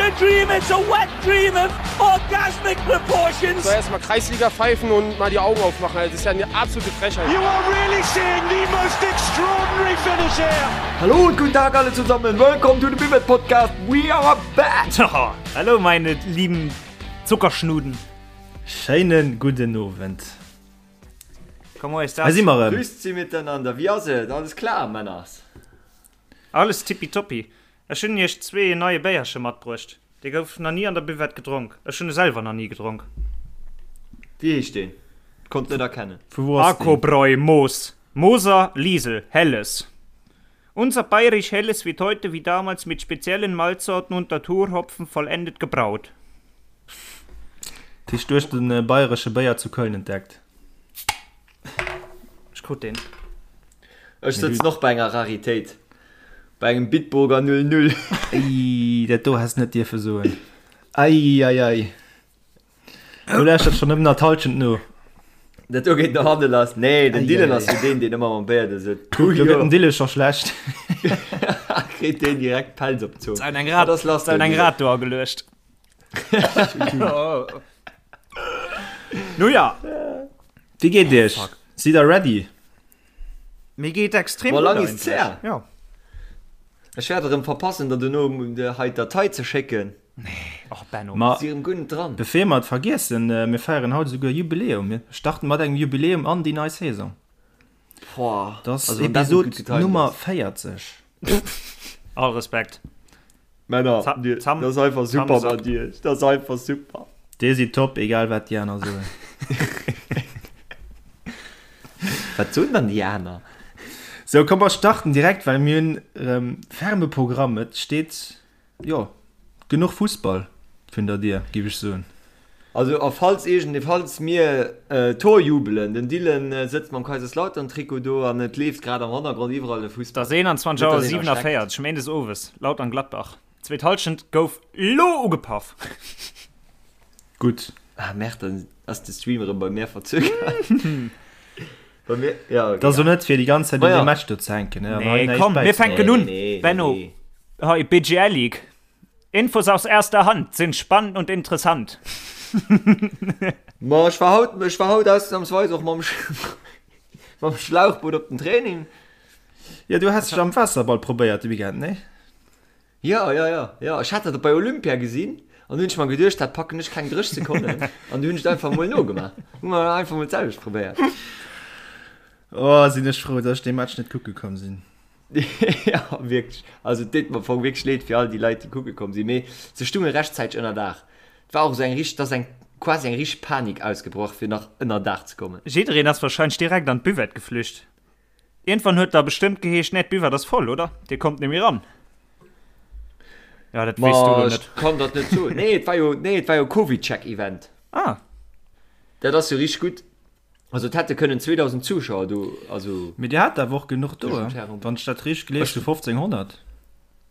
a dream, it's a wet dream of orgasmic proportions. So erstmal Kreisliga pfeifen und mal die Augen aufmachen. Das ist ja eine absolute Frechheit. You are really seeing the most extraordinary finish here. Hallo und guten Tag alle zusammen. Welcome to the Bibet Podcast. We are back. Oh, hallo meine lieben Zuckerschnuden. Schéinen gudden Owend. Comment est das? Hei si mer erëm. Grüßt Sie miteinander. Wie ass et? Alles klar, Männers? Alles tippitoppi. Ech hunn iech zwee en neie Béierche matbruecht. Dee gouf nach ni an der Buvette gedronk. Ech hunn e selwer nach ni gedronk. Wéi heescht deen? Konnt net erkennen. Vu wou ass deen? Arcobräu Moos Moser Liesel Helles Unser bayerisch Helles wird heute wie damals mit speziellen Malzsorten und Naturhopfen vollendet gebraut. Dat heescht, du hues de bayeresche Béier zu Köln entdeckt? Ech krut deen. Ech sëtzen och bei enger Raritéit, bei engem Bitburger 00. Ei, dat do häss net dierfe soen. Ei, ei, ei. Do lauschtert schonn nëmmen nach d'Hallschent no. Dat do geet no hanne lass. Nee, den Ei, Dylan ei, ass ei. jo deen, deen ëmmer mam Béier do sëtzt. Do gëtt dem Dylan scho schlecht. Kritt deen direkt Pelz op d'Zong. Eng Rad, Wat ass lass, eng Dylan? Rad do ageluecht. Nu ja. Wéi geet iech? Sidd der ready? Mir geet extrem Boah, gutt lang ist's eigentlech. her. Ja. Ech wäert erëm verpassen, der dono hei d'Datei ze schécken. Och Benno. Ma Si erëm guer net dran. bevir mer et vergiessen, mir feieren haut esouguer Jubiläum. Mir starten mat engem Jubiläum an déi nei Saison. Boah, Dat ass also wann dat net gutt Episod getimt Nummer ass. 40. All Respekt. Männer, Zam, dir, zam, dat ass einfach super Samsack. mat iech. Dat ass einfach super. Dir sidd top, egal wat déi aner soen. Wat soen dann déi aner? Sou, komm mer starten direkt, well mir hunn erëm ferme Programm. Et steet, jo, genuch Fussball vun der Dier, géif ech soen. Also a falls iergend, falls mir Tor jubelen, den Dylan sëtzt mam Kaiserslautern-Trikot do an et leeft grad am Hannergrond iwwerall de Et Fussball. ass 21 Net Auer dass een erschreckt. 47 méindes owes, Lautern-Gladbach. Zweet Hallschent gouf lo ugepaff. Gutt. Ah merde, dann ass de Stream erëm bei mär verzögert. Bei mir, ja, Et ass och net fir déi ganz Zäit un Maja. deem Match do ze hänken, ne, an hei Nee, näischt komm, mir bäizedroen. fänken un. Nee, nee, Benno, nee. hei BGL League. Infos aus erster Hand sind spannend und interessant. Ma ech war haut, ech war haut ausnahmsweis och mam, mam Schlauchboot op den Training. Jo, du has dech am Waasserball probéiert de Weekend, nee? Jo, jo, jo, jo. Ech hat dat bei Olympia gesinn an du hunn ech mer geduecht, dat packen ech keng 30 Sekonnen an du hunn ech et einfach mol nogemaach. Hu mer einfach mol d'selwecht probéiert. Oh, sinn ech frou, dass ech dee Match net kucke komm sinn. Ja, wierklech. Also et deet mer am Fong wierklech leed fir all déi Leit, déi kucke komm sinn, mee se stunge rechtzäiteg ënner Daach. Et war och esou eng richteg, et ass eng quasi eng richteg Panik ausgebrach, fir nach ënner Daach ze kommen. Jiddereen ass wahrscheinlech direkt an d'Buvette geflücht. Iergendwann huet da bestëmmt geheescht, Nee, d'Buvette ass voll, oder? Dir kommt net méi ran. Ja, dat weess du Ma lo ech net. kann dat net soen. Nee, et war jo, nee, et war jo Covid-Check-Event. Ah. Dat ass jo richteg gutt. Also et hätte kënnen 2000 Zuschauer do, also. Mee dir hat awer och genuch do, Tëschent Herren. wann ech dat richteg gelies hu, 1500.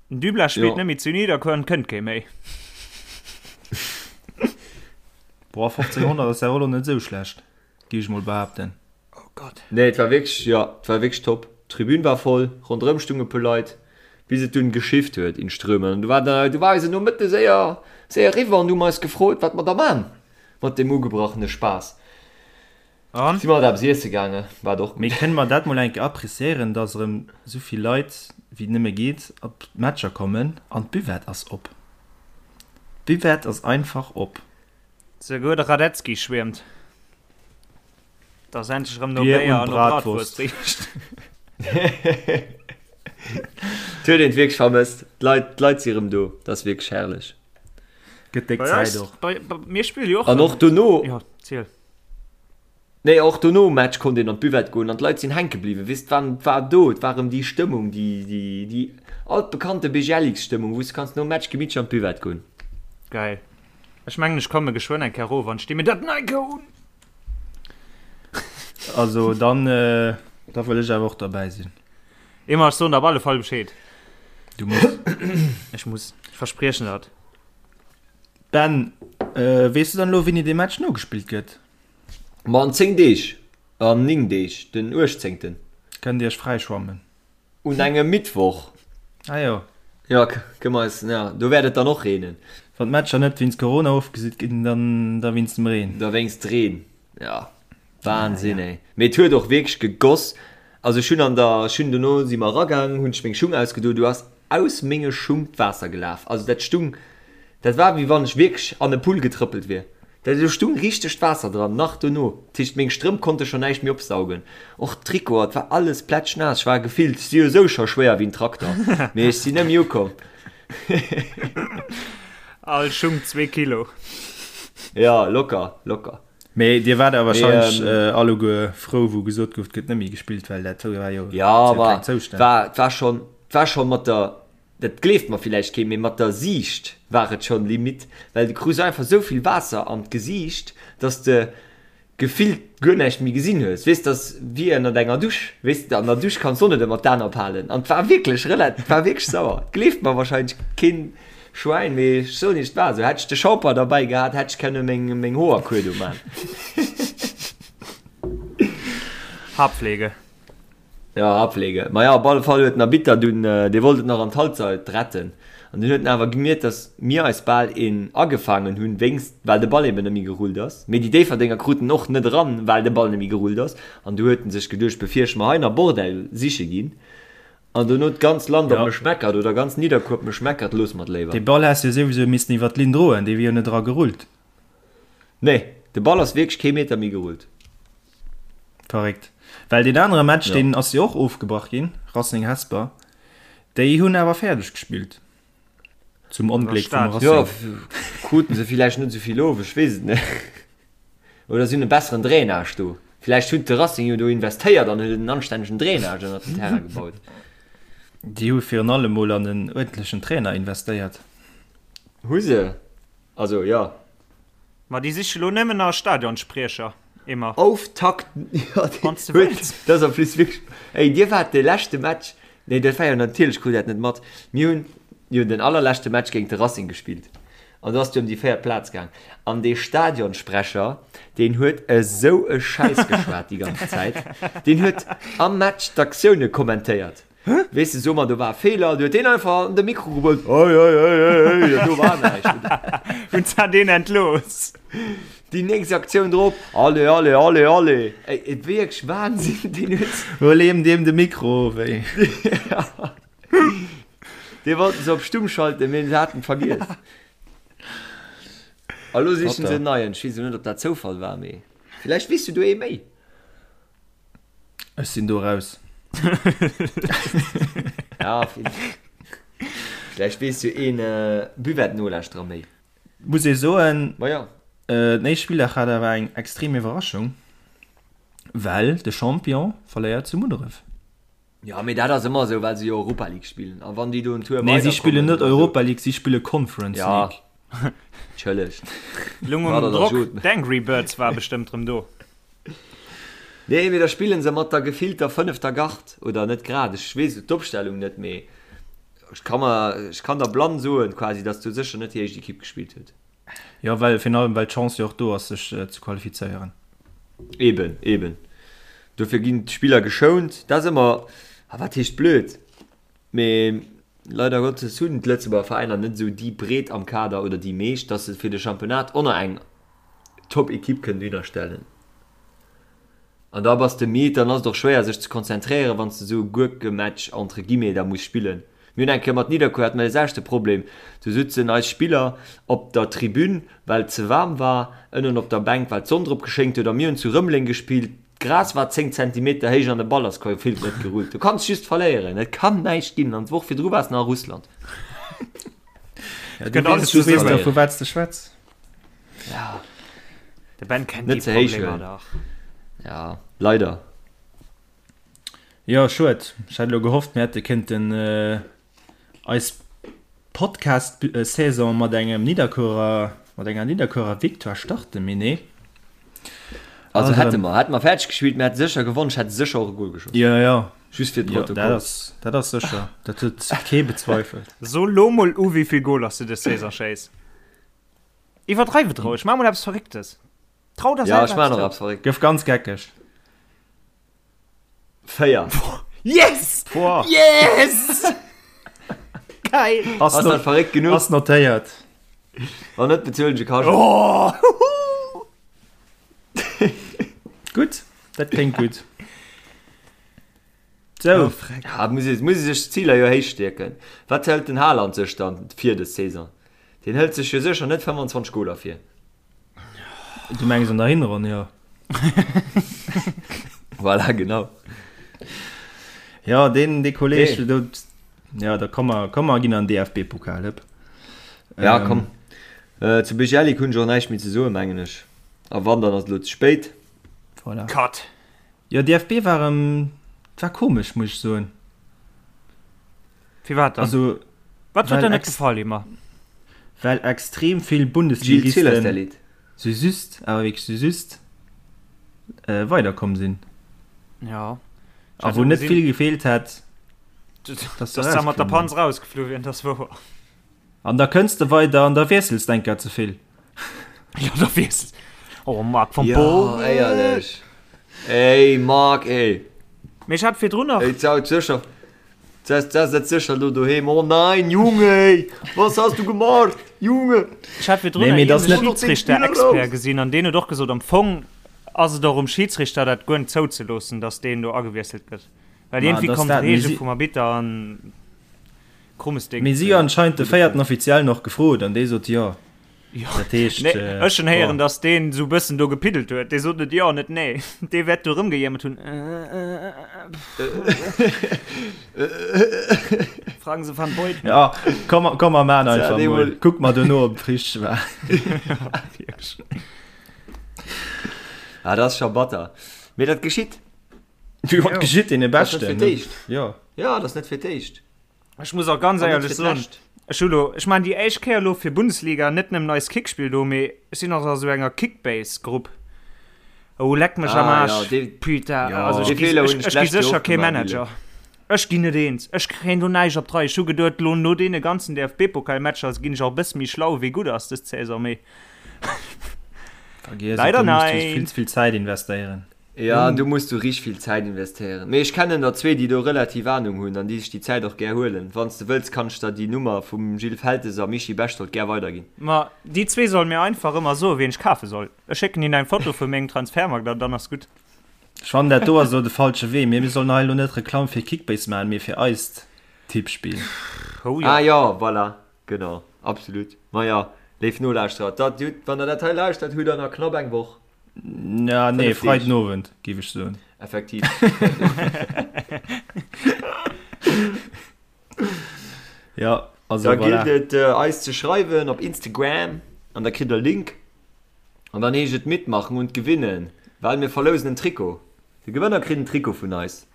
Den Dublas spillt Jo. net méi zu Niederkuer, kënnt kee méi. Boah, 1500 ass awer och lo net esou schlecht, géif ech mol behaapten. Oh Gott. Nee, et war wierklech, jo, et war wierklech top. D'Tribün war voll, ronderëm stunge puer Leit, bis et dunn geschifft huet in Strömen. An du war da, du war eisen Nomëtte séier, séier eriwwer an du hu mer eis gefrot, wat mer da man mat deem ugebrachene Spaass. An? Si mer alt eppes iesse gaange, wat och Mee gutt. kënne mer dat mol eng Kéier appréciéieren, dass erëm esou vill Leit wéi nëmme geet op d'Matcher kommen an d'Buvette ass op. D'Buvette ass einfach op. Souguer de Radetzky schwiermt, dass endlech erëm no Bier Béier und an no Bratwurst. Bratwurst richt. Et huet een et wierklech vermësst. D'Leit, d'Leit si erëm do, dat ass wierklech herrlech. Gëtt déck Bei Zäit eis, och. bei, bei, mir spille jo och An erëm. och dono. Jo, ziel. Nee, och dono um Match konnt een an d'Buvette goen an d'Leit sinn hänke bliwwen. Weess, et war, et war do, et war erëm déi Stëmmung, déi, déi, déi altbekannte BGLX-Stëmmung, wou s de kanns nom Match gemittlech an d'Buvette goen. Geil. Ech mengen ech komme geschwënn eng Kéier erof an sti mir dat nei Goun. Also dann, da wëll ech awer och derbäi sinn. Emma, ech soen der op alle Fall Bescheed. Du muss. Ech muss. Ech verspriechen dat. Ben, weess du dann elo wéini dee Match nogespillt gëtt? Ma an 10 Deeg, an 9 Deeg, den 18. Kënnt Dir iech fräischwammen. Un engem Mittwoch. Ah jo. Jo, kënne mer eis, ja, do wäert et dann och reenen. Wann d'Matcher net wéinst Corona ofgesot ginn, dann da wéinst dem Reen. Da wéinst Reen, ja. Wahnsinn, ey. Mee et huet och wierklech gegoss. Also ech hunn an der, ech hunn dono si mer eragaang, hunn ech meng Schung ausgedo, du ass aus menge Schung d'Waasser gelaf. Also dat stung, dat war wéi wann ech wierklech an e Pull getrëppelt wier. Dat do stung richteg d'Waasser dran, nach dono. Dat heescht meng Strëmp konnte scho näischt méi opsaugen. Och d'Trikoter, et war alles plätschnaass. Ech war gefillt, ech si jo esou scho schwéier wéi en Trakter, mee ech sinn net méi ukomm. All Schung zwee Kilo. Ja, locker, locker. Mee dir waart awer wahrscheinlech alleguer frou, wou gesot gouf, et gëtt net méi gespillt, well dat war jo Ja, war, war, war schon, war schon mat der, dat gleeft mer villäicht keen, mee mat der Siicht war et schon Limite, well du krus einfach esou vill Waasser an d'Gesiicht, dass de gefillt guer näischt méi gesinn hues. Weess, dass wéi ënnert enger Dusch, weess de, an der Dusch kanns du och net ëmmer d'Aen ophalen an et war wierklech rela, et war wierklech sauer. Et gleeft mer wahrscheinlech keen Schwäin, mee ech soen iech, et war esou. Hätt ech de Shampoing derbäi gehat, hätt ech kënne meng, meng Hoer kuer do man. Haarpflege. Ja, Haarpflege. Ma ja, op alle Fall huet den Arbitter dunn, dee wollt et nach an d'Halbzeit retten. An dunn huet en awer gemierkt, datt mir eis bal een agefaangen hunn, wéinst, well de Ball eben net méi gerullt ass. Mee déi Déifferdenger kruten en och net eran, well de Ball net méi gerullt ass. An du huet en sech geduecht, bevir ech mer hei nach Bordell siche ginn, An dono d'ganz Land op mech meckert oder ganz Nidderkuer op mech meckert, loosse mer et léiwer. Dee Ball häss jo souwisou missen iwwer d'Linn droen, dee wier jo net era gerullt. Nee, de Ball ass wierklech kee Meter méi gerullt. Verréckt. Well deen anere Match, deen ass jo och ofgebrach ginn, Racing Hesper, déi hunn awer fäerdeg gespillt. Zum Ongléck vum Racing. Jo, kruten se villäicht net esou vill of, ech weess et net. Oder si hunn e besseren Drainage do. Villäicht huet de Racing jo do investéiert an huet en anstännegen Drainage ënnert den Terrain gebaut. Déi hu virun allem mol an en uerdentlechen Trainer investéiert. Hu se? Also, jo. Ma déi siche lo nëmmen nach e Stadionspriecher, Emma. Auftakt, jo, Wann s de wëlls. Dat ass en plus wierklech, ey, dir waart de leschte Match, nee, dat war jo natierlech, krut dat net mat, mir hunn jo den allerleschte Match géint de Racing gespillt. An do ass et jo ëm déi véiert Plaz gaang. An dee Stadionsprecher, deen huet esou e Schäiss geschwat déi ganz Zäit. Deen huet am Match d'Aktioune kommentéiert. Weess de, so mer, do war e Feeler, du huet deen einfach an de Mikro gebrüllt, Hei, hei, hei, hei, hei, jo, do war näischt. Hunn se deen entlooss? Déi nächst Aktioun drop, Allez, allez, allez, allez. Ey, et wierklech Wahnsinn, deen huet. Huel eem deem de Mikro of, ey. Dee wollten se op stumm schalten, mee se haten et vergiess. A lo sichen se en neien. Ech weess elo net, ob dat Zoufall war, mee villäicht weess du do ee méi. Ech sinn do raus. Ja, villäicht weess jo een Buvette-Nolauschterer méi. Muss ee soen, Ma ja. Den éischte Spilldag hat awer eng extrem Iwwerraschung, well de Champion verléiert zu Munneref. Jo, mee dat ass ëmmer esou, well se jo Europa League spillen. A wann déi do en Tour Nee, si spillen net Europa League, si spille Conference League. Ja, entschëllegt. Lung um Drock, d'Angry Birds war bestëmmt rëm do. Nee, mee da spillen se mat der gefillter fënnefter Gard, oder net grad, ech weess d'Opstellung net, mee ech ka mer, ech kann der blann soen quasi, datt do sécher net déi éischt Ekipp gespillt huet. Jo, well virun allem well d'Chance jo och do ass sech ze qualifizéieren. Eben, eben. Dofir ginn d'Spiller geschount. Dat ass ëmmer, ah wat heescht blöd, mee leider Gottes hunn d'Lëtzebuerger Veräiner net esou déi Breet am Kader oder déi meescht, datt se fir de Championnat och nach eng Top-Ekipp kënnen dohinner stellen. An da bass de midd, dann ass et och schwéier sech ze konzentréieren, wann s de esou e Gurkematch entre guillemets da muss spillen. Mir hunn eng Kéier mat Nidderkuer hate mer dee selwechte Problem, do sutzen eis Spiller op der Tribün, well et ze waarm war, ënnen op der Bänk, well d'Sonn drop geschéngt huet a mir hunn zu Rëmeleng gespillt, d'Gras war 10 Zentimeter héich an de Ball ass gefillt net gerullt. Du kanns just verléieren, et kann näischt ginn an d'Woch virdru waars nach a Russland. Ja, du weess, du weess da vu wat s de schwätz. Ja. De Ben kennt Net déi ze héich Problemer huelen. dach. Ja, leider. Jo, schued. Ech hat elo gehofft, mir hätte kënnten eis Podcast-Saison mat engem Nidderkuerer, mat enger Nidderkuerer Victoire starten, mee nee. Also Also hätte mer, hätte mer fäerdeg gespillt, mir hätte sécher gewonnen, ech hätt sécher och e Goal geschoss. Jo, jo. Just fir Jo, d'Protokoll. dat ass, dat ass sécher. Dat huet kee bezweifelt. So lo mol u, wéivill Goaler s du dës Saison schéiss. Iwwerdreiw et roueg, maach mol eppes Verrécktes. Trau der Ja, selwer ech maachen eppes och zou. eppes Verrécktes. Gëff ganz geckeg. 4. Yes! Boah. Yes! Geil! Ass dat verréckt genuch? Ass notéiert. Wann net, bezuelen ech e Cachet. Oh! Gutt, dat kléngt gutt. Sou. Oh, freck. Ja, muss ee, muss ee sech d'Ziler jo héich stierken. Wat hëlt den Haaland sech dann vir dës Saison? Deen hëlt sech jo sécher net 25 Goler vir. Du mengs an der Hinronn, jo. Voilà, genau. Ja, deen, dee Kolleg, Nee. do, ja, da komm mer, komm mer ginn an DFB-Pokal, hëpp. Ja, Ähm, komm. Äh, zu Bejelic hunn ech och näischt méi ze soen, mengen ech. A wann, dann ass et elo ze spéit. Voilà. Cut. Jo, DFB war erëm, war komesch, muss ech soen. Firwat dann? Also, Wat huet well der net ex- gefall, Emma? well extrem vill Gilles Bundesligisten Zillerstellit. sou just, awer wierklech sou just, äh, weiderkomm sinn. Ja. A wou net vill gefeelt hätt, dass dass se se mat der erausgeflunn Panz rausgeflu wieren, dat ass wouer. An da kënns de weider an da wiessels d'eng Kéier ze vill. Jo, da wiessels. Oh, Marc van Ja, Bommel. éierlech. Ey, Marc, ey. Mee ech hat virdrun nach. Ey, d'Sau sécher. D'Sau setzt sécher lo doheem. Oh nein, Junge, ey. Was hast du gemacht, Junge? Ech hat virdrun Nee, mee nach dat ass iergendee net. Schiedsrichter-Expert gesinn an deen huet och gesot, am Fong ass et och um Schiedsrichter, dat guer net zouzeloossen, datt deen do agewiesselt gëtt. Well Ma, iergendwéi dass kommt dat, mee d'Reegel si. vum Arbitter an. Krummes Ding. Mee si hu anscheinend de véierten Offiziellen och gefrot an dee sot jo. Jo, Dat heescht, nee, ech hunn héieren, boah. datt deen esou bëssen do gepiddelt huet. Dee sot net jo, net nee. Dee wäert do erëmgejéimert hunn. Fragen Se van Beuten. Ja, komm, komm mer maan Tja, einfach dee mol. mol. Kuck mer dono, ob et richteg war. Wierklech. Ah, dat ass scho batter. Mee dat geschitt. Jo, dat geschitt deene Dat ass net Beschten, fir ne? d'éischt. Jo. Jo, dat ass net fir d'éischt. Ech muss och ganz An net éierlech fir soen, d'lescht. ech hu lo, ech maachen déi éischt Kéier elo fir Bundesliga net nëmmen eist Kickspill do, mee ech sinn och a sou enger Kickbase-Grupp. Oh, leck mech am Ah, Aarsch, ja, dee, putain, Ja. also ech dee gi, Feeler ech, hunn ech ech gi d'lescht Joer sécher och kee gemaach, Manager. Gilles. Ech ginn net eens, ech kréien do näischt op d'Rei. Ech hu geduet, lo no deene ganzen DFB-Pokalmatcher ginn ech och e bësse méi schlau, wéi gutt ass dës Saison, mee Vergiess et, leider do muss du nein. vill ze vill Zäit investéieren. Ja, do muss du richteg vill Zäit investéieren. Mee ech kennen der zwee, déi do relativ Ahnung hunn an déi sech déi Zäit och gär huelen. Wann s de wëlls, kann ech der déi Nummer vum Gilles Feltes a Michi Bechtold gär weiderginn. Ma déi zwee solle mir einfach ëmmer soen, wien ech kafe soll. Ech schécken hinnen eng Foto vu mengem Transfermarkt an dann ass gutt. Ech fannen dat do ass elo de falsche Wee. Mir sollen hei elo net Reklamm fir Kickbase maachen, mee fir eist Tippspill. Oh jo. Ah jo, voilà, genau, absolut. Maja, léif Nolauschterer, dat hutt, wann der dat hei lauschtert, hutt der nach knapp eng Woch. Ja, nee, 5 Deeg. Freiden Owend, géif ech soen. Effektiv. Ja, also Da voilà. gillt et äh, eis ze schreiwen op Instagram an da kritt der Link. An dann heescht et mitmachen und gewinnen, well mir verlousen en Trikot. De Gewënner kritt en Trikot vun eis.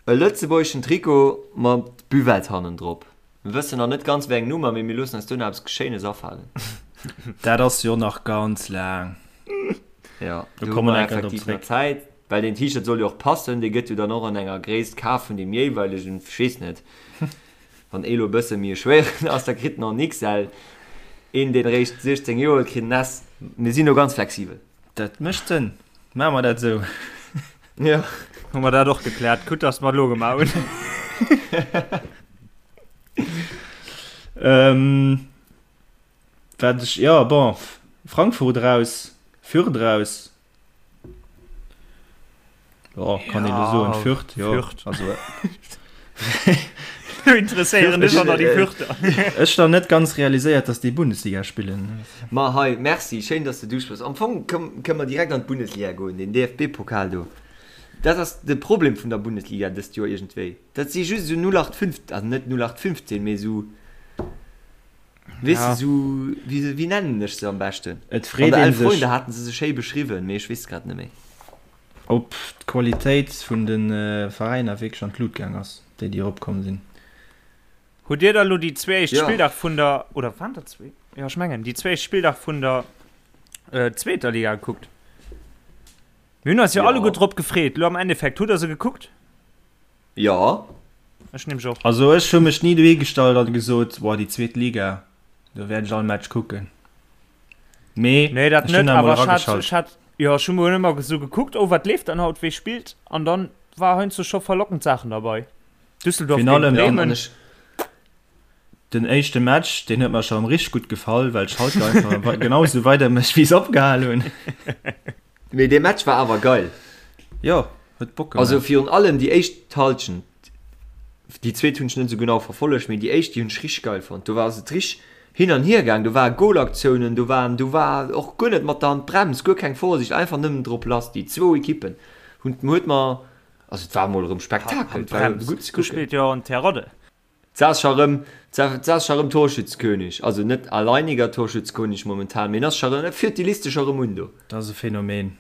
E lëtzebuergeschen Trikot mat Buvette hannendrop. Mir wëssen nach net ganz wéi eng Nummer, mee mir loossen eis duerno eppes Schéines afalen. Dat ass jo nach ganz laang. Jo, Do do hu komme mer mer enker drop effektiv nach zréck. Zäit, well deen T-Shirt soll jo och passen. Dee gëtt jo dann och an enger Gréisst kaf vun deem jeeweilegen, ech weess net, wann ee lo e bësse méi e schwéieren ass, da kritt en och en XL, een deen eréischt 16 Joer huet, kritt en S. Mir sinn do ganz flexibel. Dat mécht Sënn. Maache mer dat esou. Jo. Hu mer dat och gekläert. Gutt, dass mer et elo gemaach hunn. Ähm, wat ech, jo, bon, Frankfurt raus, Fürth raus. Jo, kann een elo soen, Fürth, jo. Fürth. Also, Du interesséieren dech och nach déi Fürther. Ech nach net ganz realiséiert, dass déi Bundesliga spillen. Ma hei, merci, schéin, dass de duspréchs. Am Fong kënne mer direkt an d'Bundesliga goen, den DFB-Pokal do. Dat ass de Problem vun der Bundesliga dëst Joer iergendwéi. Dat si just esou 0815, also net 0815, mee esou, weess de, esou, wéi, wéi nennen ech se am beschten? Et An freet der ee Elf sech. Freunde haten se se schéi beschriwwen, mee ech weess grad net méi. Ob d'Qualitéit vun de Veräiner wierklech an d'Lut gaang ass, déi déi eropkomm sinn. Hutt Dir da lo déi zwee éischt Jo. Spilldag vun der, oder waren dat zwee? Jo, ech mengen, déi zwee éischt Spilldag vun der zweeter Liga gekuckt? Mir hunn eis jo Jo. alleguer drop gefreet. Lo am Endeffekt, hutt Der se gekuckt? Jo. Ech nämlech och. Also ech hu mech ni dohi gestallt an gesot, boah déi zweet Liga, do wäert ech all Match kucken. Mee Nee, dat ech hunn net, emol awer ech hat, erageschalt. ech hat, jo, ech hu mer ëmmer esou gekuckt, oh wat leeft dann haut, wee spillt, an dann war heiansdo scho verlockend Saachen derbei. Düsseldorf Virun géint allem Ja, an Bremen. ech. Den éischte Match, deen huet mer scho richteg gutt gefall, well Schalke einfach genau esou weidermécht, wéi se opgehal hunn. Mee dee Match war awer geil. Jo, huet Bock gemaach. Also virun allem déi éischt Halschent. Déi zweet hunn ech net esou genau verfollegt, mee déi éischt, déi hunn ech richteg geil fonnt. Do war ass et richteg hin an hier gaang, do ware Golaktiounen, do waren, do war och guer net mat der Hand d'Brems, guer keng Vorsicht, einfach nëmmen drop lass. Déi zwou Ekippen hunn, huet mer, also et war emol erëm Spektakel, et war gutt ze kucken. Do spillt jo en Terodde. Ass scho rëm, ass scho rëm Torschützekönig, also net alleiniger Torschützekönig momentan, mee en ass scho rëm, e führt déi Liste scho rëm un do. Dat ass e Phänomen.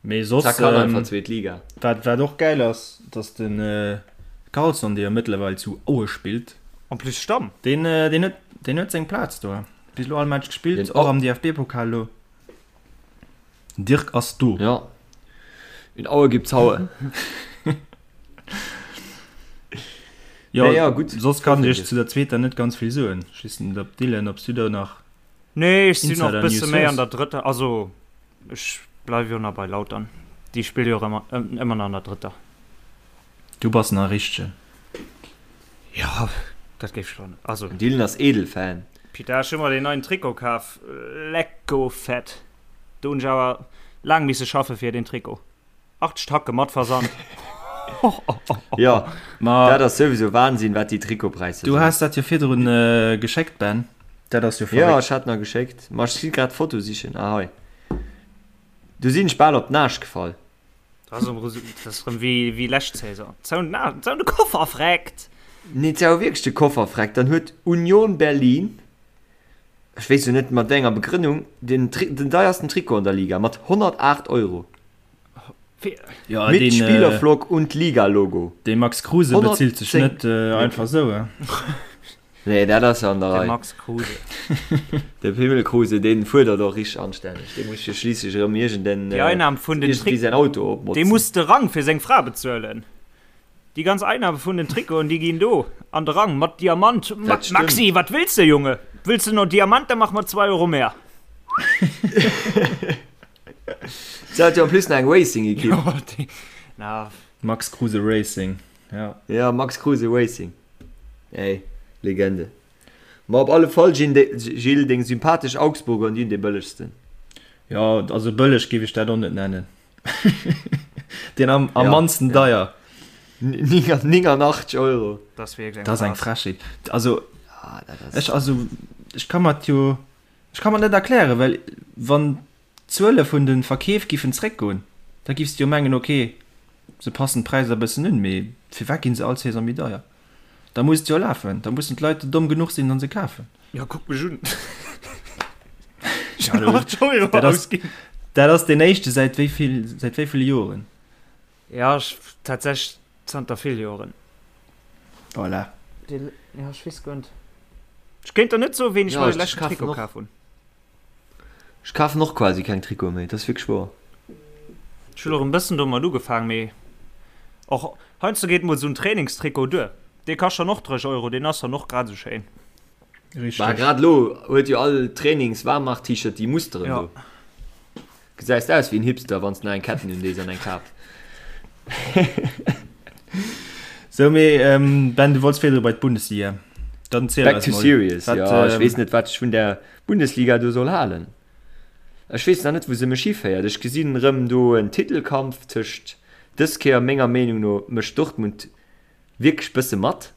Mee soss, Za kann einfach zweet Liga. Wat, wat och gäil ass, dass de Karlsson, dee jo mëttlerweil zu Aue spillt, En plus Stamm. deen, deen huet, deen huet seng Plaz do. Bis elo all Match gespillt, och am DFB-Pokal elo. Den Dirk ass do. Ja. In Aue gibt's Haue. Jo, nee, ja, gutt. Soss kann ech zu der zweeter net ganz vill soen. Ech weess net, ob Dylan, ob s du do nach Nee, ech sinn och bësse méi an der drëtter, also Ech bleiwe jo nach bei Lautern. Déi spille jo ëmmer ëmmer nach an der drëtter. Du bass nach e richtegen. Jo, dat géif ech lo net. Also. Den Dylan ass Edelfan. Pita, ech hu mer deen neien Trikot kaf. Lecko fett. Do hunn ech awer laang misse schaffe fir deen Trikot. 80 Tacke mat Versand. Jo, dat ass souwisou Wahnsinn, wat déi Trikotpräisser sinn. Du has dat jo virdrun geschéckt, Ben. Dat ass jo verréckt. Jo, ech hat nach geschéckt. Ma ech si grad d'Foto sichen. Ah, hei. Du sinn ech bal op d'Naasch gefall. Dat ass erëm wéi lescht Saison. Zou de Koffer freckt! Nee, zou wierklech de Koffer freckt. Dann huet Union Berlin, ech weess jo net mat wéi enger Begrënnung, den deiersten Trikot an der Liga mat 108 Euro. Ja, Mit den, Spielerflock und Liga-Logo. De Max Kruse bezilt sech net äh, einfach sou. Äh. Nee, dat ass an der De Rei. Max Kruse. De Pimmel Kruse, deen fuerdert och richteg anstänneg. Dee muss jo schliisslech erëm iergenden, Déi Einnahm vun den iergendwéi Trick säin Auto Dee opmotzen. muss de Rang fir seng Fra bezuelen. Déi ganz Einnahme vun den Trikoten, déi ginn do an de Rang mat Diamant. Ma Dat stëmmt. Maxi, wat wëlls de, Junge? Wëlls de no Diamant, da mach mer 2 Euro mehr. Se hat jo en plus nach eng Racing-Ekipp. Jo, déi, na. Max Kruse Racing, ja. Ja, Max Kruse Racing. Ey, Legende. Ma op alle Fall, Gilles, deng sympathesch Augsburger, déi hunn dee bëllegsten. Jo, also bëlleg géif ech dat och net nennen. Deen am, am Ja, mannsten ja. deier. 89 Euro. Dat ass wierklech eng Dat ass eng Farce. Frechheet. Also, Ah, dat ass. ech, also, ech ka mer et jo. Ech ka mer net erklären, well wann d'Zuele vun de Verkeef giffen zréckgoen, da giffs de jo mengen, ok, se passen d'Präisser e bëssen un, mee firwat ginn se all Saison méi deier? Da muss et jo lafen, da mussen d'Leit domm genuch sinn an se kafen. Jo, kuck mech un. Ech hunn 8 Euro ausginn. Dat ass deen éischte säit wéi vill, säit wéi ville Joren? Ja, ech, tatsächlech zanter vill Joren. Voilà. Dee, ja, ech weess guer net. Ech kéint der net soen, wéini ech Ja, mer de ech leschten kafen Trikot och. kaf hunn. Ech kafen och quasi keng Trikote méi, dat ass wierklech wouer. Ech hunn och en bëssen domat ugefaang, mee och heiansdo geet mol esou en Trainingstrikot duer. Dee kascht dann och 30 Euro, deen ass dann och grad esou schéin. Bah, Richteg. grad elo huet jo all Trainings-Waarmach-T-Shirt déi Musteren Ja. do. Gesäis aus wéi en Hipster wanns de nach eng Ketten un dees an eng Kap. Sou mee Ben du wollts virdru bei d'Bundesliga. Dann ziel Back eis to mol. serious, Wat, jo ech weess net wat ech vun der Bundesliga do soll halen. Ech weess nach net wou se mech hiféiert. Ech gesinn erëm do en Titelkampf tëscht dës Kéier menger Meenung no mécht Dortmund wierklech bësse mat,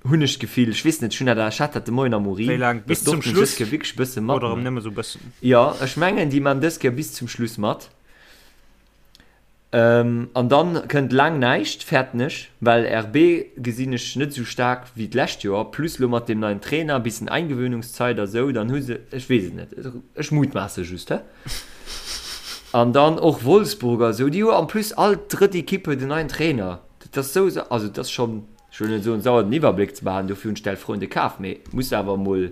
hunn ech d'Gefill. Ech weess net, ech hunn dat, ech hat dat de Moien am Wéi Urin, laang? Bis datt zum Dortmund dës Schluss Kéier wierklech bësse mat oder erëm mécht. nëmme sou bëssen? Jo, ech mengen, déi man dës Kéier bis zum Schluss mat. An dann kënnt laang näischt, fäerten ech, well RB gesinn ech net esou staark wéi d'lescht Joer, plus lo mat deem neien Trainer, bissen Eingewöhnungszeit a sou, dann hu se, ech weess et net, ech mutmaasse just, he. An dann och Wolfsburg a sou, déi hu en plus all drëtt Ekipp huet en neien Trainer. Dat ass sou, also et ass schonn, ech wëll net soen, sauer den Iwwerbléck ze behalen, dofir hunn ech d'Elf Freunde kaf, mee muss awer emol,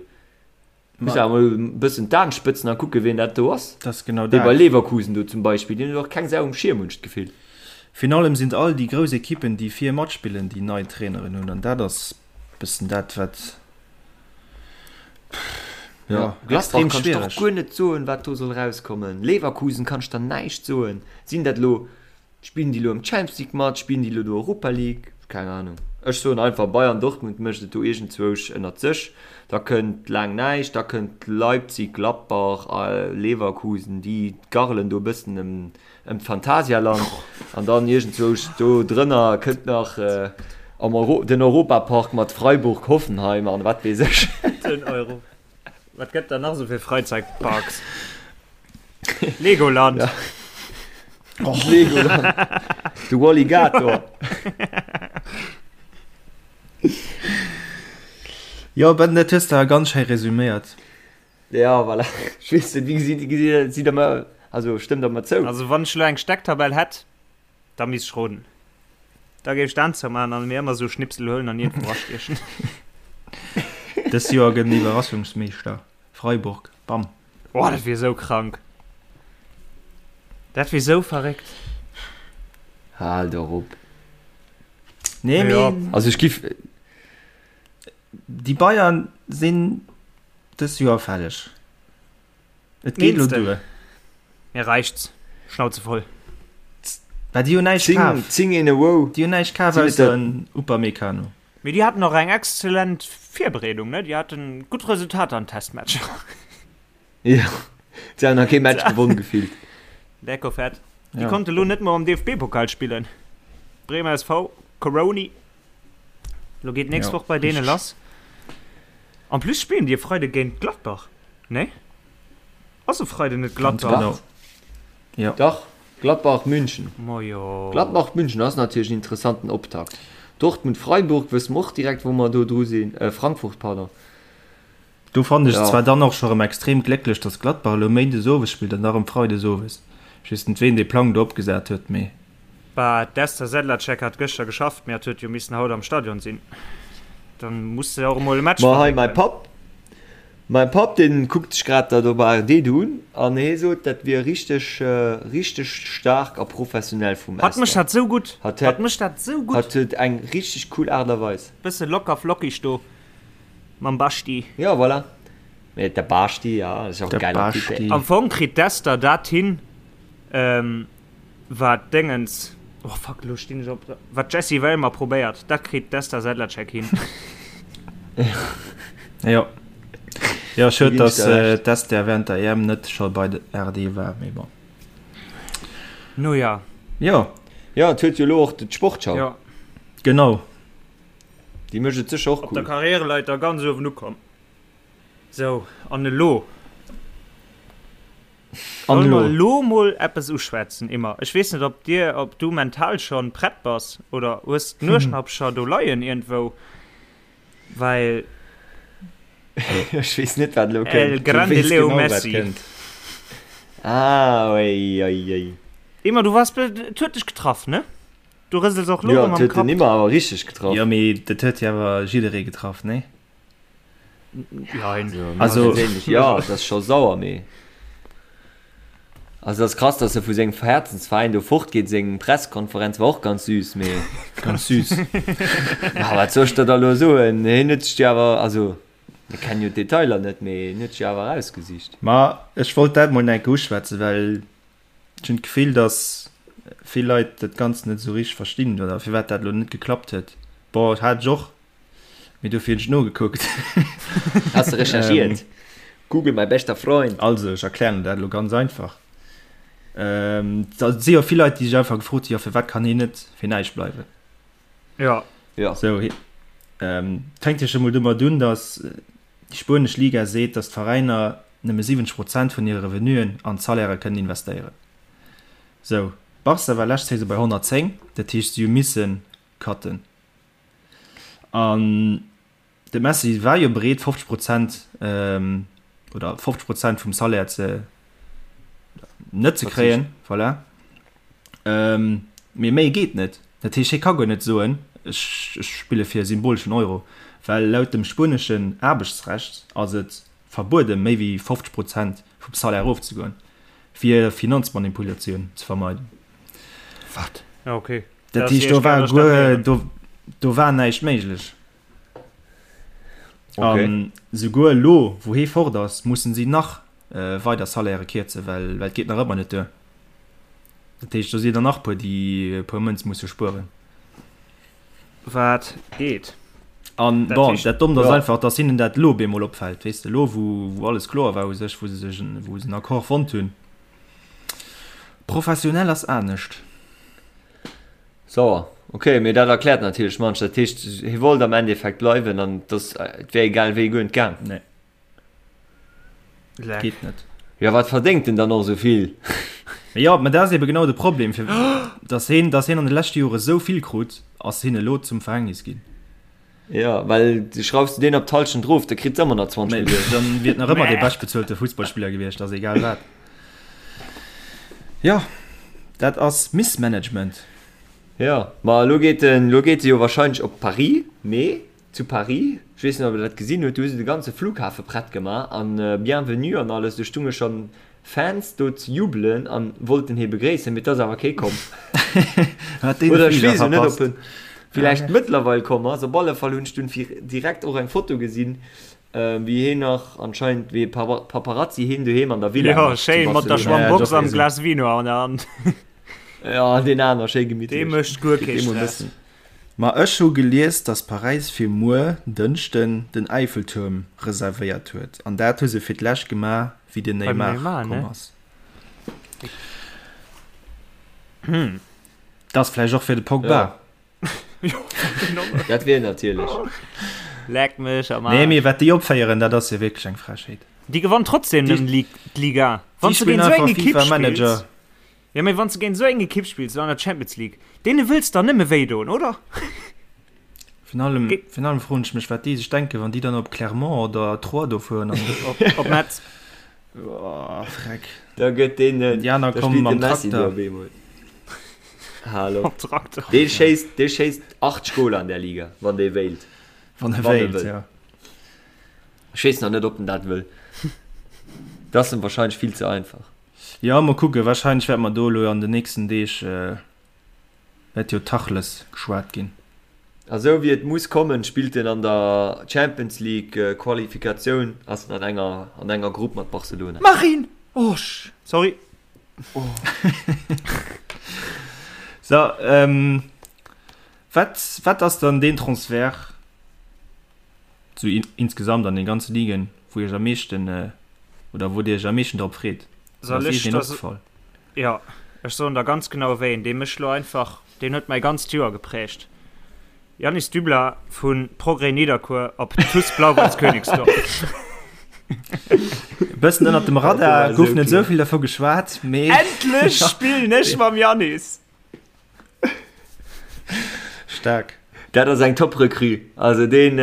muss awer emol e bëssen d'Aen spëtzen a kucken, wien dat do ass. Dat ass genau Déi bei dat. Leverkusen do zum Beispill, déi hunn och keng Sau um Schierm, hunn ech d'Gefill. Virun allem sinn et all déi grouss Ekippen, déi vir matspillen, déi nei Traineren hunn an dat ass bëssen dat, wat. Ja, Gladbach kann ech och guer net soen, wat do soll rauskommen. Leverkusen kann ech der näischt soen. Sinn dat elo, spillen déi elo am Champions League mat, spillen déi elo do Europa League? Keng Ahnung. Ech soen einfach Bayern Dortmund mécht et do iergendzwousch ënnert sech. Da kënnt laang näischt, da kënnt Leipzig, Gladbach a Leverkusen, déi garelen do e bëssen ëm ëm d'Phantasialand. An dann iergendzwousch do drënner kënnt nach am Euro den Europapark mat Freiburg, Hoffenheim an wat weess ech. Den Euro. Wat gëtt da nach esou fir Freizeitparks? Legoland. Ja. Oh. Legoland. De Walligator. Jo, Ben, dat hues de awer ganz schéi resüméiert. Ja, voilà. Ech weess net, wéi gesitt, gesitt, sidd der mer, also stëmmt der mer zou? Also wann ech elo eng Stecktabell hätt, da misst ech roden. Da géif ech d'Aan zoumaachen an mir ëmmer esou Schnipsel huelen an iergendwou erastiechen. Dës Joer gëtt en Iwwerraschungsmeeschter. Freiburg, bam. Oh, dat wier esou krank. Dat wier esou verréckt. Hal doch op. Nee, Ja. mee Also ech giff. déi Bayern sinn dës Joer fälleg. Et geet elo Meenste? duer. Mir reichts. Schnauze voll. Well déi hunn näischt 10, kaf. 10 in a row. Déi hunn näischt kaf Sinn et ausser der- en Upamecano. Mee déi haten och eng exzellent Virbereedung, ne? Déi haten gutt Resultater an Testmatcher. Jo, se hunn nach kee Match gewonn gefillt. Lecko fett. Déi Ja. konnte lo net mol am DFB-Pokal spillen. Bremer SV, Coroni. Lo geet nächst Ja, Woch bei deene richtig. lass. En plus spillen déi e Freide géint Gladbach, ne? Ass e Freiden net Ganz Gladbach? genau. Ja. Dach, Gladbach München. Majo. Gladbach München ass natierlech en interessanten Optakt. Dortmund Freiburg wësse mer och direkt wou mer do dru sinn, äh Frankfurt pardon. Do fannen ech et Ja. zwar dann och scho rem extrem glécklech, dass Gladbach elo Méindes owes spillt an da rem Freides owes. Ech weess net ween dee Plang do opgesat huet, mee. Bah, d'Esther Sedlacek hat gëschter geschafft, mee hat huet jo missen haut am Stadion sinn. Dann muss se och emol e Match Ma hei mäi verréckelen. Papp, mäi Papp deen kuckt sech grad dat op ARD do un an hee sot dat wier richteg richteg staark a professionell vum Hatt mécht Esther. dat sou gutt, Hatt hatt hätt mécht dat sou gutt. hatt huet eng richteg cool Aart a Weis. Bësse locker flockig do mam Basti. Jo voilà, mee de Basti ja ass och e De geiler Typ. Basti. Am Fong kritt d'Esther dat hin, Wat Déngens, oh fuck, elo stinn ech op, wat d'Jessie Wellmer probéiert, dat kritt d'Esther Sedlacek hin. Jo. Jo, schued, ginn ech dass der Recht. d'Esther während der EM net scho bei der RD war, mee bon. No ja. Jo. Jo, et huet jo elo och d'Sportschau. Jo. Genau. Déi mécht et sécher och Op der cool. Karriereleiter ganz uewen ukomm. Sou, an elo? An Solle mer elo? elo mol eppes uschwätzen, Immer? Ech weess net, ob dir, ob du mental schonn prett bass oder hues d'Nueschnappcher do leien iergendwou, well. Ech weess net, wat elo El kënnt. Du grande weess Leo genau, wat Messi. kënnt. Ah, oi, oi, oi. Immer, du waars, et huet dech getraff, ne? Du rësels och elo Jo, erëm et am huet den Kapp. Immer awer richteg getraff. Jo, mee dat huet jo awer jidderee getraff, nee? Jein. Also, ja, dat ass scho sauer, mee also dat ass krass, dass e vu sengem Herzensveräin do fortgeet. Seng Presskonferenz war och ganz süß, mee ganz süß. Ja, wat soll ech der da elo soen? Hien huet sech déi awer, also mir kennen jo d'Detailer net, mee hien huet sech déi awer erausgesicht. Ma ech wollt dat mol enke uschwätzen, well ech hunn d'Gefill, dass vill Leit dat Ganzt net esou richteg verstinn oder firwat dat elo net geklappt huet. Bon, hat ech och Mee dofir hunn ech nogekuckt. Has de recherchiert? Google, mein bester Freund. Also, ech erklären dat elo ganz einfach. Et si jo vill Leit, déi sech einfach gefrot hunn, jo firwat kann hien net fir näischt bleiwen? Jo. Jo. Sou, et fänkt jo scho mol domat un, datt déi spuenesch Liga seet, datt d'Veräiner nëmme 70 Prozent vun hire Revenuen an d'Salairë kënnen investéieren. Sou, Barca war lescht Saison bei 110, dat heescht si hu misse cutten. An de Messi war jo bereet 50 Prozent oder 50 Prozent vum Salaire ze net ze kréien, voilà. Mee méi geet net. Dat heescht, hie ka guer net soen, ech spille fir e symboleschen Euro, well laut dem spueneschen Aarbechtsrecht ass et verbueden, méi wéi 50 Prozent vum Salaire erofzegoen, fir Finanzmanipulatioun ze vermeiden. Wat? Okay. Dat heescht, do war guer, do, do war näischt méiglech. Okay. An souguer elo, wou hee fort ass, mussen si nach weider Salairë kierzen, well, well et geet nach ëmmer net duer. Dat heescht, do si der nach puer, déi e puer Mënz musse spueren. Wat geet. An bon, dat Dommt ass einfach, dass hinnen dat elo op eemol opfält, weess de, elo wou wou alles kloer war u sech, wou se sech en, wou se en Accord fonnt hunn. Professionell ass anescht. Sauer. Ok, mee dat erkläert natierlech munch. Dat heescht, hie wollt am Endeffekt bleiwen an et ass, et wär egal wéi guer net gaang. Nee. Leck. Geet net. Jo, wat verdéngt en dann och esou vill? Mee jo, mä dat ass ebe genau de Problem, fir dass hien, dass hien an de leschte Jore esou vill krut, ass hien elo zum Verhängnis ginn. Jo, well schraufs du deen op d'Hallschent erof, da kritt se ëmmer nach 20 Mä Milliounen. dann wier et nach ëmmer dee beschtbezuelte Fussballspiller gewiescht, ass egal wat. Jo, dat ass Missmanagement. Jo, ma elo geet en, elo geet e jo wahrscheinlech op Paris, mee zu Paris, ech weess net ob der dat gesinn hutt, do hu se de ganze Flughafe prett gemaach an Bienvenue an alles, do stunge schonn Fans do ze jubelen an wollten hee begréissen, mee et ass awer kee komm. Hat deen Oder ech Fliger weess jo net verpasst. ob en villäicht mëttlerweil komm ass. Op alle Fall hunn ech dunn fir direkt och eng Foto gesinn, wéi heen nach anscheinend wéi e Paparazzi heen doheem an der Villa Jo, mécht zu schéin mat der Barcelona. Ja, Schwammbox doch, am gesinn. Glas Vino an der Hand. Ja, deen aner schéi Dee gemittlech. mécht guer Kritt kee dee mol e Stress. bëssen. Ma ech hu gelies, dass Paräis fir muer, Dënschden, den Eiffeltuerm reservéiert huet. An dat hu se fir d'lescht gemaach, wéi den Beim Neymar Neymar, komm ne? ass. Dat ass vläicht och fir de Pogba. Ja. Dat wier natierlech. Leck mech am Nee, mee Aarsch. wat déi opféieren, dat ass jo wierklech eng Frechheet. Déi gewannt trotzdem Déi, nëmmen d'Liga. déi Wann s du spillen géint esou eng einfach Ekipp FIFA Manager. spills. Jo, mee wann s de géint esou eng Ekipp spills an der Champions League, deene wëlls der nëmme wéi doen, oder? Virun allem, virun allem froen ech mech, wat déi sech denken, wann déi dann op Clermont oder Troyes do fueren an. Op, op Metz. Oh, Freck. Da gëtt deen, Déi aner da komme spillt de mam Messi do Trakter. op eemol. Hallo. Op Trakter. Dee schéisst, dee schéisst 8 Goler an där Liga, wann dee wéilt. Wann e Wann e wéilt, wëll. ja. Ech weess nach net, ob en dat wëll. Dat ass em wahrscheinlech vill ze einfach. Jo, mol kucken, wahrscheinlech wäerte mer do elo an den nächsten Deeg, wäert jo Tachles geschwat ginn. A sou wéi et muss kommen, spillt en an der Champions League Qualifikatioun, ass en an enger an enger Grupp mat Barcelona. Marine! Oh, sorry. So, wat, wat ass dann deen Transfert, sou insgesamt an den ganze Ligen, wou iech am meeschten, oder wou dir iech am meeschten drop freet? Soll Ass ech iech een das, opgefall? Jo, ech soen der ganz genau wéi een, dee mech lo einfach, deen huet mäi ganzt Joer geprägt, Yannis Dubler vu Progrès Nidderkuer op TuS Blau-Weiß Königsdorf. E bëssen ënnert dem Radar, gouf net esou vill dervu geschwat, mee. Endlech spillen ech mam Yannis! Staark. Dat ass eng top Recrue. Also deen,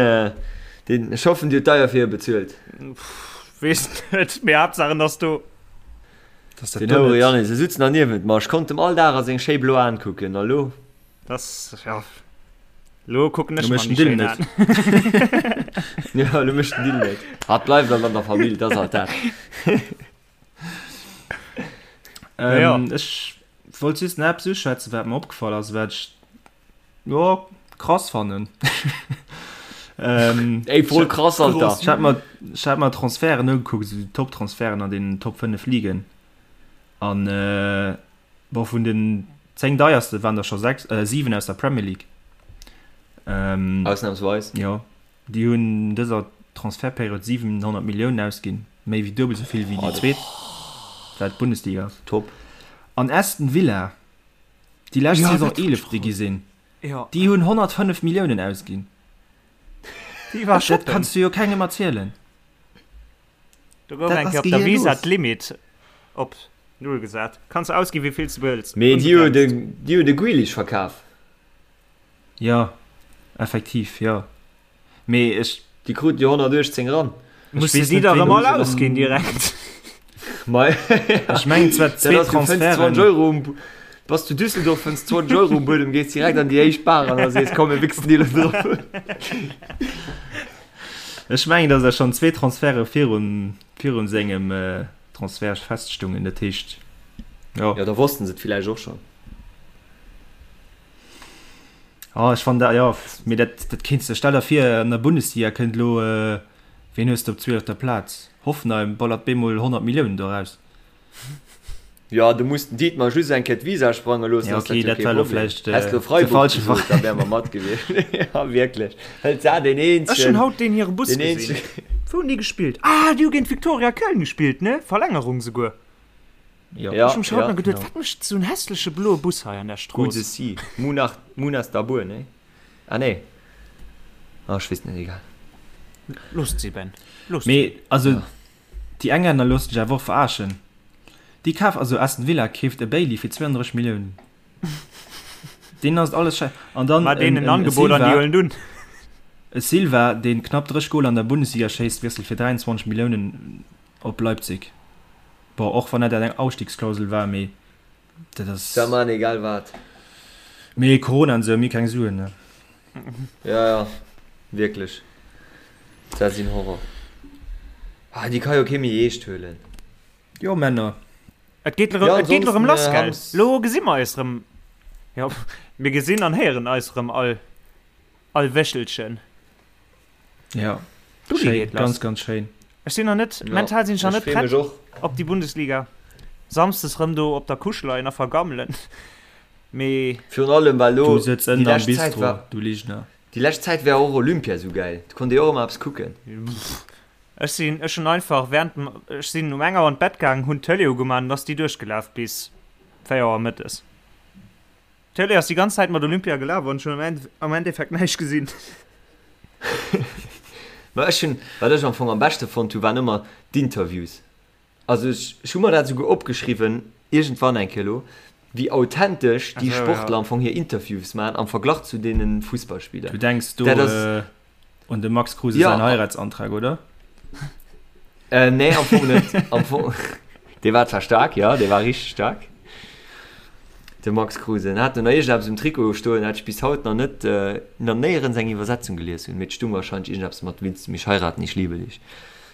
deen, ech hoffen dir hutt deier fir e bezuelt. Weess net, mee Haaptsaach en ass do. Dass dat Den do Houre net. Yannis, e sutz nach niewent mer, ech konnt em all Dag a seng schéi blo Aen kucken, a lo? Das, ja, lo kucken ech Lo mer mécht den déi Dill schéin net. Aen. Jo, lo mécht den Dill net. Hat bleift alt an der Famill, dat ass alt dat. Ja. Ähm, ech wollt just nach eppes uschwätzen, wat mer opgefall ass, wat ech jo krass fannen. ähm, Ey, voll krass, Alter. Ech hat mer, ech hat mer Transferten ugekuckt, esou déi Top-Transferten an den Top 5 Ligen. An äh, bon, vun den 10 deierste waren der scho 6, äh, 7 aus der Premier League. Ähm, Ausnahmsweis. Jo. Déi hunn an dëser Transfertperiod 700 Milliounen ausginn, méi wéi duebel esou vill wéi déi zweet, wat d'Bundesliga ass. Top. An Aston Villa, déi lescht Saison Eelefte gi sinn, déi hunn 105 Milliounen ausginn. Dat kanns du jo kengem erzielen. Do gouf eng Kéier op der Visa d'Limit op null gesat. Kanns ausginn, wéi vill s de wëlls. Mee déi hu de Grealish verkaf. Jo, effektiv, jo. Mee ech. Déi kruten jo 118 ran. Muss de déi da rëm all ausginn direkt? Mei. Ech mengen zwar zwee Transferten. 20 Euro um, bass zu Düsseldorf, fënns 20 Euro um Buedem, gees direkt an déi éischt Bar an a sees, komm mir wichsen déi elo drop. Ech mengen, datt der schonn zwee Transferte virun, virun sengem Transfert feststungen. Dat heescht, jo. Jo, da wossten se et villäicht och schonn. Oh, ech fannen dat, jo, mee dat, dat kéints de, stell der vir, an der Bundesliga kënnt elo, ween hues de op zwielefter Plaz? Hoffenheim ballert bemol 100 Milliounen do eraus. Jo, du muss den Dietmar just eng Kéier d'Visa sprange loossen, Ja, ass dat okay, jo dat kee war elo Problem. vläicht Häss lo de Freiburg falsche gesot, da Veräin. wäre mer mat gewiescht. Ja, wierklech. Hëlt se deen Ech hunn eenzegen, haut deen hire Bus deen gesinn. eenzegen. Wou hunn déi gespillt? Ah, déi hu géint Viktoria Köln gespillt, ne? Verlängerung souguer. Jo. Ja, Ech hu mech haut ja, nach geduet, genau. wat mécht esou en hässleche bloe Bus hei an der Gutt Strooss? se si. Munach, Munas Dabbur, ne? Ah, nee. Ah, ech weess net, egal. Loosst si, Ben. Loosst si. Mee, also, Ja. déi Englänner loossen sech awer och verarschen. Déi kaf, also Aston Villa keeft e Bailey fir 32 Milliounen. Deenen ass et alles schei. An dann Mar en, deenen en en, e Angebot an déi Silva, huelen et un. e Silva, deen knapp 30 Goler an der Bundesliga schéisst, wiesselt fir 23 Milliounen op Leipzig. Bon, och wann dat eng Ausstiegsklausel war, mee dat ass. Da man egal wat. Mee Corona an esou, mir keng Suen, ne? Ja, ja, wierklech. Dat sinn Horror. Ah, déi ka jo kee méi eescht huelen. Jo, Männer. Et geet erëm, Ja, et geet erëm lass, ansonsten, gell? Hams. Lo gesi mer eis erëm. Jo, mir gesinn an héieren eis erëm all, all Wéchelchen. Ja, D'Uli schéin, geet lass. ganz, ganz schéin. Ech sinn nach net, Ja, mental sinn ech nach ech net free prett mech och. op déi Bundesliga. Samsdes rëm do op der Couche leien a vergammelen. Mee. Virun allem, well Du lo sëtz déi ënnen am lescht Zäit Bistro, war, du Ligner. déi lescht Zäit war och Olympia sou gäil. Do konnt ee och ëmmer eppes kucken. Ech sinn, ech hunn einfach während dem, ech sinn um eng Auer an d'Bett gaangen, hunn d'Tëlee ugemaach an ass déi duerchgelaf bis 4 Auer mëttes. D'Tëlee ass déi ganz Zäit mat Olympia gelaf an ech hunn am Endeffekt näischt gesinn. Ma ech hunn, wat ech am Fong am beschte fonnt hu waren ëmmer d'Interviews. Also ech, ech hu mer dat esouguer opgeschriwwen, iergendwann eng Kéier elo, wéi authentesch déi Ach sou, Sportler ja. am Fong hir Interviews maachen am Verglach zu deene Fussballspiller. Du denks do Dat ass. un dem Max Kruse Ja. säin Heiratsantrag, oder? Äh, nee, am Fong net. Am Fong, dee war zwar staark, ja, dee war richteg staark. De Max Kruse. En hat do nach iergendeppes um Trikot stoen, dat ech bis haut nach net, äh, nach néierens eng Iwwersetzung gelies hunn. Mee et stung wahrscheinlech iergendeppes mat Willst du mich heiraten, ich liebe dich.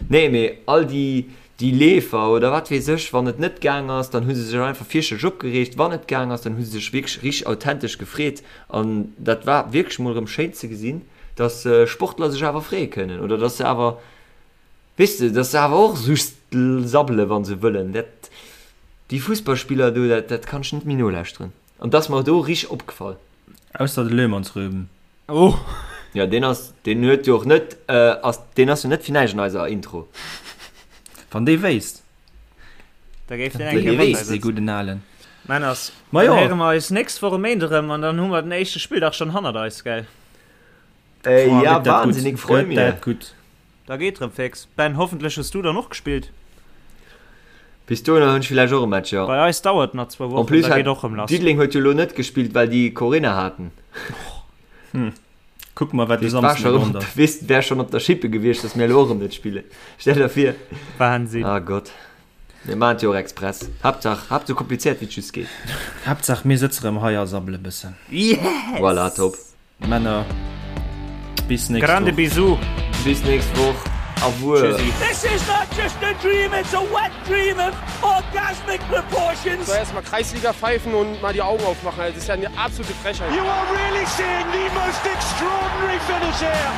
Nee, mee all déi, déi Leefer oder wat weess ech, wann et net gaang ass, dann hu se sech einfach fierchterlech opgereegt. Wann et gaang ass, dann hu se sech wierklech richteg authentesch gefreet. An dat war wierklech mol erëm schéin ze gesinn, dass Sportler sech awer freeë kënnen oder dass se awer, weess de, dass se awer och just sabbele wa se wëllen. Dat, déi Fussballspiller do, dat, dat kann ech net méi nolauschteren. An dat ass mer do richteg opgefall. Ausser de Löhmannsröben. Oh! Jo, deen ass, deen huet jo och net, ass, deen ass jo net fir näischt an eiser Intro. Wann dee wéisst. Da géif deen Wann eng dee Kéier mat wéisst, eis dee sëtzen. gudden Alen. Männers, Ma dann jo. héiere mer eis nächst Woch e Méinde rëm an dann hu mer den éischte Spilldag schonn hannert eis, gell? Äh, Boah, ja, gëtt dat gutt. wahnsinnig, freu Gëtt mir. dat gutt. Da geet rëm fix. Ben, hoffentlech hues du dann och gespillt. Bis dohinner hunn ech villäicht och e Match, jo. Bei eis dauert nach zwou En Wochen, plus da hat geet och rëm lass. Diddeleng huet jo elo net gespillt, well déi Corinna haten. Hm. Kucke mer, wat de Weess, war Samsden scho erëm op, ass. weess, wär schonn op der Schippe gewiescht, datt mir elo och erëm net spillen. Stell der vir. Wahnsinn. Ah Gott. Mir maachen et jo och express. Haaptsaach, Haaptsaach sou komplizéiert wéi et just geet. Haaptsaach mir sëtze rëm hei a sabbele bëssen. Yes! Voilà, top. Männer, bis nächst Grande Woch. Bisous. Bis nächst Woch. Au revoir. Tschüssi. This is not just a dream, it's a wet dream of orgasmic proportions. So erstmal Kreisliga pfeifen und mal die Augen aufmachen. Also, das ist ja eine absolute Frechheit. You are really seeing the most extraordinary finish here.